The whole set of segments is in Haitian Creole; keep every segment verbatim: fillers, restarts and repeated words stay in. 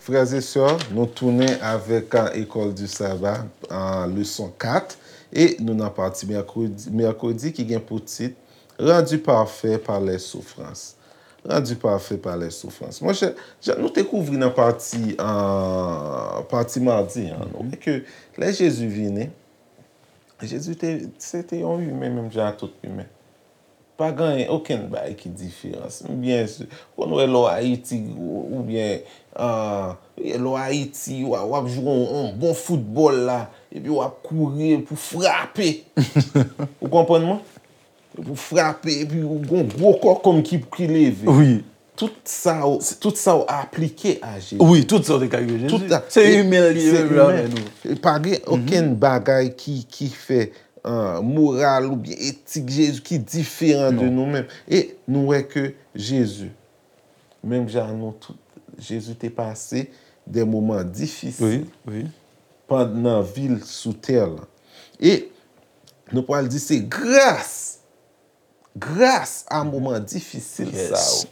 Frè e sè, nou tounen avèk, a, École du Sabbat, a, leson kat, e nou nan pati mèkredi, mèkredi ki gen pou tit Rendu parfait par les souffrances. Rendu parfait par les souffrances. Monchè, jan nou te kouvri nan pati, a, pati madi an, nou wè ke lè Jezi vini, Jezi te, se te yon imen menm jan ak tout imen. Pa gen okenn bagay ki diferans. Byen si, konn wè lè w Ayiti, ou, oubyen, a, lè w Ayiti, w a, w ap jwe yon, yon bon foutbòl la, epi w ap kouri pou frape. Ou konprann mwen? Pou frape, epi w gon gwo kòkòm ki, ki leve. Wi. Tout sa w, tout sa w aplike a Jezi. Wi, tout sa w te ka rive Jezi. Tout sa. Se imen li ye, menm jan avè nou. Pa gen okenn bagay ki, ki fè, a, moral oubyen etik Jezi ki diferan de nou menm. E nou wè ke Jezi, menm jan nou tout, Jezi te pase de moman difisil pandan vi l sou tè lan. E nou pral di se gras, gras a moman difisil sa yo,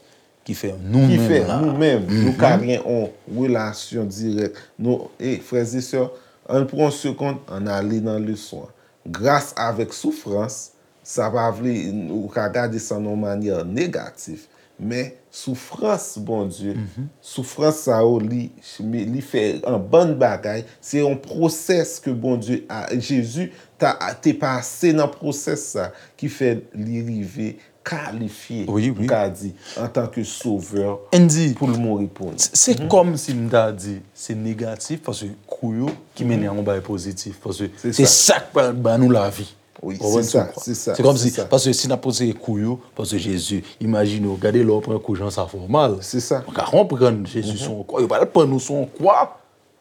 ki fè nou menm la, nou menm, nou ka gen yon relasyon dirèk. Nou, e, frè e sè, ann pran yon segonn, ann ale nan leson an. Gras avèk soufrans, sa pa vle, ou ka gade sa nan yon manyè negatif, men soufrans Bondye, soufrans sa yo, li, li fè yon bann bagay, se yon pwosès ke Bondye, a, Jezi ta, te pase nan pwosès sa, ki fè li rive kalifye, m ka di, antanke sovè pou l mouri pou nou. Se kòmsi m ta di, se negatif, paske kou yo ki mennen a yon bagay pozitif, paske se sa k pral ba nou lavi. Wi, se sa, se sa. Se kòmsi, paske si n ap konsidere kou yo, paske Jezi, imajine w, gade lè w pran kou jan sa fè w mal. Se sa. Ou ka konprann Jezi se yon kwa, yo pral pann ou se yon kwa.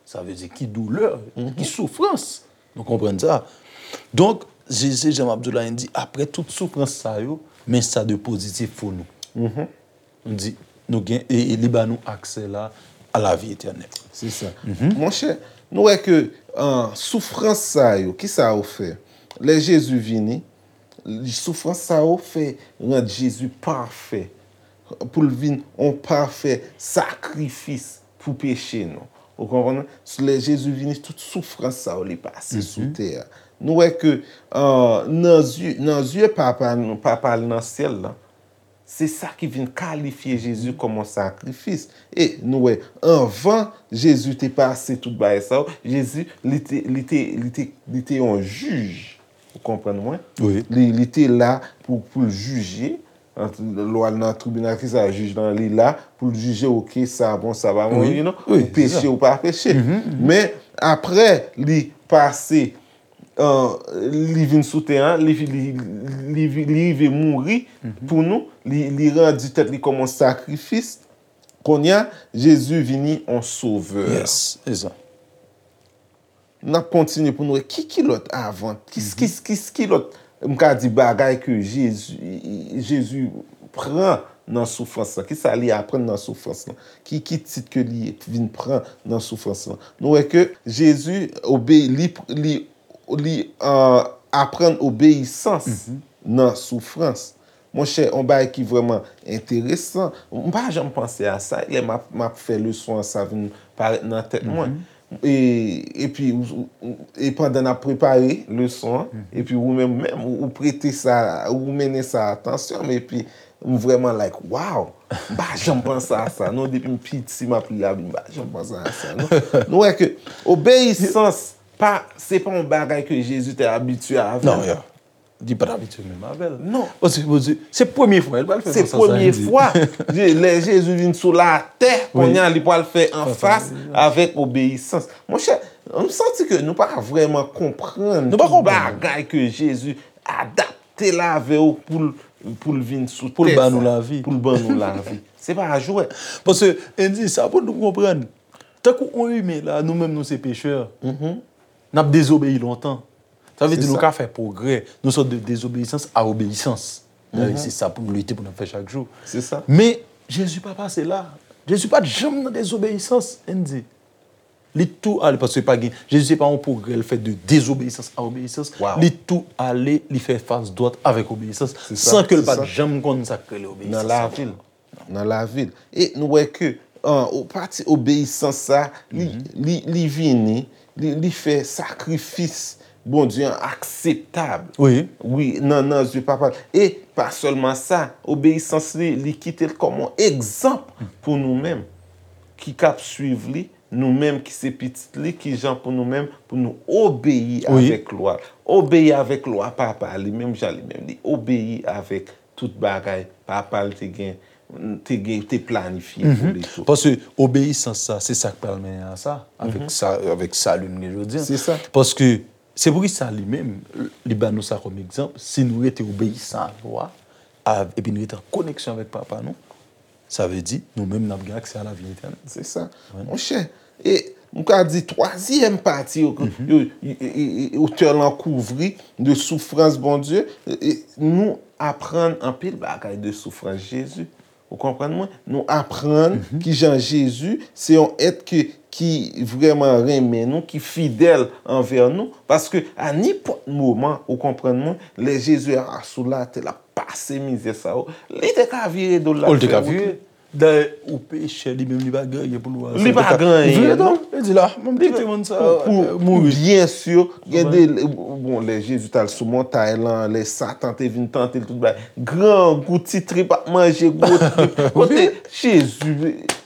Sa vle di ki doulè, ki soufrans. Nou konprann sa. Donk, Jezi, jan m ap di w la, li di, apre tout soufrans sa yo, men sa de pozitif pou nou. Nou di, nou gen, e, e li ba nou aksè la a lavi etènèl. Se sa. Monchè, nou wè ke, a, soufrans sa yo, ki sa yo fè? Lè Jezi vini, soufrans sa yo fè rann Jezi pafè, pou l vin yon pafè sakrifis pou peche nou. Ou konprann? Lè Jezi vini, tout soufrans sa yo li pase sou tè a. Nou wè ke, a, nan zye, nan zye Papa nou, Papa l nan syèl la, se sa ki vin kalifye Jezi kòm yon sakrifis. E nou wè, anvan Jezi te pase tout bagay sa yo, Jezi, li te, li te, li te, li te yon jij. Ou konprann mwen? Wi. Li, li te la pou, pou l jije. Lè w al nan tribinal, kisa jij lan, li la pou l jije, oke, sa bon, sa pa bon, you know, ou peche, ou pa peche. Men, apre, li pase, a, li vin sou tè an, li, li, li, li rive mouri pou nou, li, li randi tèt li kòm yon sakrifis. Kounye a, Jezi vini yon sovè. Yes, e sa. N ap kontinye pou n wè ki, ki lòt avan, ki, ki, ki, ki lòt, m ka di, bagay ke Jezi, Jezi pran nan soufrans lan. Kisa li aprann nan soufrans lan? Ki, ki tit ke li vin pran nan soufrans lan? Nou wè ke Jezi obe-, li, li, li, a, aprann obeyisans nan soufrans. Monchè, yon bagay ki vrèman enteresan, m pa janm panse a sa, lè m ap, m ap fè leson an, sa vin parèt nan tèt mwen. E, epi, ou, ou, e pandan n ap prepare leson an, epi ou menm, menm, ou, ou prete sa, ou mennen sa atansyon m, epi m vrèman like, wow! M pa janm panse a sa, non, depi m piti, m ap li Labib, m pa janm panse a sa, non. Nou wè ke obeyisans, pa, se pa yon bagay ke Jezi te abitye avè l. Non, yeah. Li pa t abitye menm avè l. Non. Paske, paske se premye fwa, li pral fè sa, sa, sa, li di. Se premye fwa. Je-, lè Jezi vin sou latè, kounye a, li pral fè anfas avèk obeyisans. Monchè, m santi ke nou pa vrèman konprann tout bagay ke Jezi adapte l avè yo pou l, pou l vin sou tè sa, pou l ban nou lavi. Pou l ban nou lavi. Se pa jwèt. Paske, Andy, sa pou nou konprann. Tankou yon imen la, nou menm nou se pechè. N ap dezobeyi lontan. Sa vle di nou ka fè pwogrè. Nou sot de dezobeyisans a obeyisans. Dayè, se sa pou nou lite pou n ap fè chak jou. Se sa. Men, Jezi pa pase la. Jezi pa t janm nan dezobeyisans, Andy. Li tou ale, paske pa gen, Jezi se pa yon pwogrè l fè de dezobeyisans a obeyisans. Li tou ale, li fè fas dwat avèk obeyisans, san ke l pa t janm konn sa k rele obeyisans. Nan lavi l. Nan lavi l. E nou wè ke an, o pati obeyisans sa, li, li, li vini, li, li fè sakrifis Bondye an akseptab. Wi. Wi, nan, nan zye Papa l. E pa sèlman sa, obeyisans li, li kite l kòm yon egzanp pou nou menm ki k ap swiv li, nou menm ki se pitit li, ki jan pou nou menm, pou nou obeyi avèk lwa. Obeyi avèk lwa Papa li, menm jan li menm li obeyi avèk tout bagay Papa l te gen, te gen, te planifye pou li tou. Paske obeyisans sa, se sa k pral mennen a sa, avèk sa, avèk sali nou gen jodi a. Se sa. Paske se pou ki sa li menm, li ba nou sa kòm egzanp, si nou rete obeyisan a lwa, a, epi nou rete an koneksyon avèk Papa nou, sa vle di, nou menm n ap gen aksè a lavi etènèl. Se sa. Monchè, e m ka di twazyèm pati yo, yo, e, e, e, otè lan kouvri de soufrans Bondye, e, e, nou aprann anpil bagay de soufrans Jezi. Ou konprann mwen? Nou aprann kijan Jezi se yon èt ke, ki vrèman renmen nou, ki fidèl anvè nou, paske a nenpòt moman, ou konprann mwen, lè Jezi a sou latè, l ap pase mizè sa yo, li te ka vire do l, l ap fè wout li. Dayè, ou pechè, li menm, li pa gen anyen pou l wè ansanm. Li pa gen anyen, non. Li di la, mwen m kite moun sa yo mouri. Byen si, gen de, bon, lè Jezi t al sou montay lan, lè Satan te vin tante l, tout bagay. Grangou, ti trip ap manje gwo trip. Kote Jezi,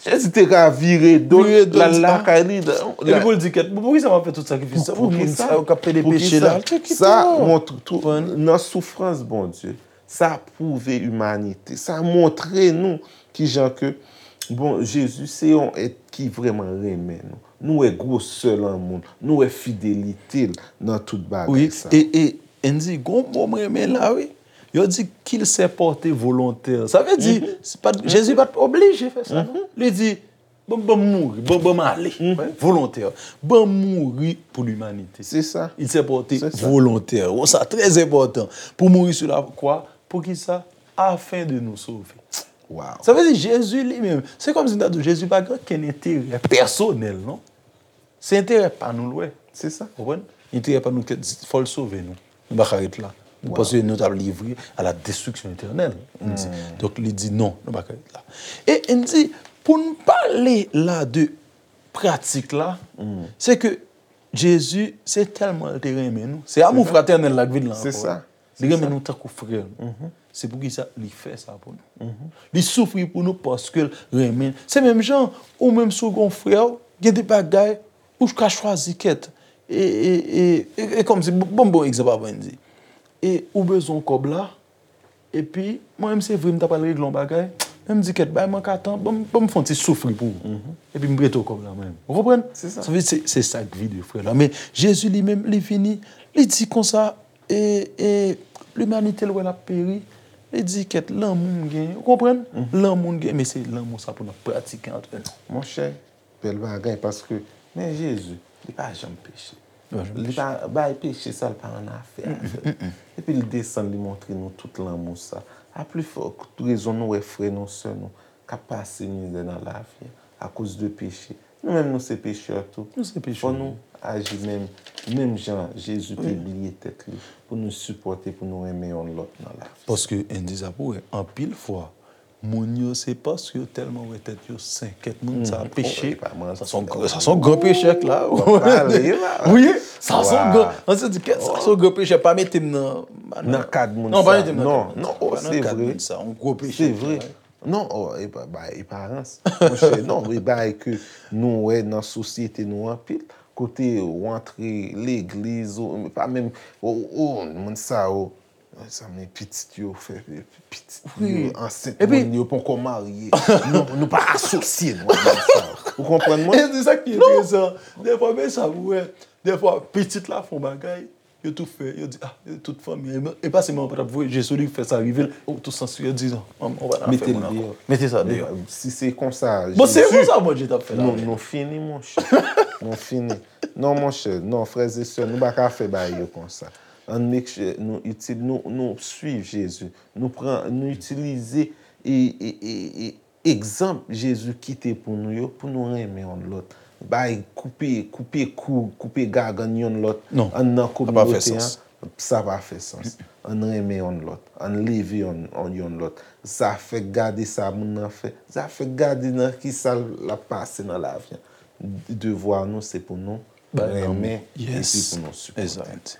Jezi te ka vire do l, l al lakay li. Epi pou l di, kèt, poukisa m ap fè tout sakrifis sa pou moun sa yo k ap pede peche la? Sa montre tou, nan soufrans Bondye, sa pwouve imanite. Sa montre nou kijan ke, bon, Jezi se yon èt ki vrèman renmen nou. Nou wè gwosè lanmou l, nou wè fidelite l nan tout bagay sa. Wi, e, e, Andy, gon mo m renmen la, wi. Yo di qu'il s'est porté volontaire. Sa vle di, se pa t, Jezi pa t oblije fè sa, non. Li di, Ban, ban m mouri, ban, ban m ale. Volontè. Ban m mouri pou limanite. Se sa. Il s'est porté volontaire. Bon, sa trè enpòtan. Pou mouri sou la kwa. Poukisa? Afin de nous sauver. Sa vle di Jezi li menm, se kòmsi m ta di w, Jezi pa gen okenn enterè pèsonèl, non. Se enterè pa nou l wè. Se sa. Konprann? Enterè pa nou, kèt, fò l sove nou. Nou pa ka ret la. Paske nou t ap livre à la destruction éternelle. Donk, li di non, nou pa ka ret la. E n di, pou n pale la de pratik la, se ke Jezi, se tèlman l te renmen nou. Se amou fratènèl la k vin la ankò. Se sa. Li renmen nou tankou frè l. Se poukisa li fè sa pou nou. Li soufri pou nou paske l renmen. Se menm jan, ou menm si w gen yon frè w, gen de bagay, ou ka chwazi kèt. E, e, e, e, e kòmsi, bon, bon, bon egzanp avan n di. E ou bezwen yon kòb la, epi mwen menm se vre m ta pral regle yon bagay, men m di kèt, bay mwen ka tan, ban m, ban m fè yon ti soufri pou ou. Epi m prete w kòb la mwen menm. Ou konprann? Se sa. Sa vle di se, se sa k vide frè la. Men Jezi li menm, li vini, li di konsa, e, e, limanite l wè l ap peri, li di kèt, lanmou m gen, ou konprann? Lanmou m gen, men se lanmou sa pou n ap pratike antre nou. Monchè, bèl bagay, paske, men Jezi, li pa janm peche. Li pa bay peche sa, li pa annafè avè l. Epi l desann, li montre nou tout lanmou sa. A pli fò rezon nou wè frè nou, sè nou, k ap pase mizè nan lavi a, akoz de peche. Nou menm, nou se pechè tou. Nou se pechè. Fò nou aji menm, menm jan Jezi te bliye tèt li, pou nou sipòte, pou nou renmen yonn lòt nan lavi. Paske, Andy, sa pou wè, anpil fwa, moun yo, se paske yo tèlman wè tèt yo sen, kèt moun sa peche. Sa se yon gran, sa se yon gran pechè k la. Wi, sa se yon gran, an se di, kèt, sa se yon gran pechè, pa mete m nan, nan kad moun sa. Non, pa mete m nan kad moun sa. Non, non, se vre. Yon gwo pechè. Se vre. Non, o, e pa, ba, eparans. Monchè, non, e bagay ke nou wè nan sosyete nou anpil. Kote ou antre legliz, ou pa menm, o, o, moun sa yo, sa men pitit yo fè, pitit yo ansent, moun yo poko marye. Non, nou pa asosye nou ak moun sa yo. Ou konprann mwen? E se sa ki enteresan. Dèfwa, men sa, ou wè, dèfwa, pitit la fè yon bagay, yo tou fè, yo di, ah, tout fanmi, e pa se manman pa t ap voye je sou li, fè sa rive l, ou tou sanse, yo di, non, manman, ou pa nan afè moun ankò. Mete sa deyò. Si se konsa, bon, se konsa Bondye t ap fè la. Nou, nou fini, monchè. Nou fini. Non, monchè, non, frè e sè, nou pa ka fè bagay yo konsa. Ann make sure nou itil, nou, nou swiv Jezi. Nou pran, nou itilize e, e, e, e, egzanp Jezi kite pou nou yo, pou nou renmen yonn lòt. bay, koupe, koupe kou, koupe gagann yonn lòt Non, anndan sa pa fè kominote sans. An, sa pa fè sans. Ann renmen yonn lòt, ann leve yonn, yonn lòt. Zafè gade sa moun nan fè, zafè gade nan ki sa l ap pase nan lavi an. Devwa nou se pou nou renmen epi Yes. Pou nou sipòte. Exact.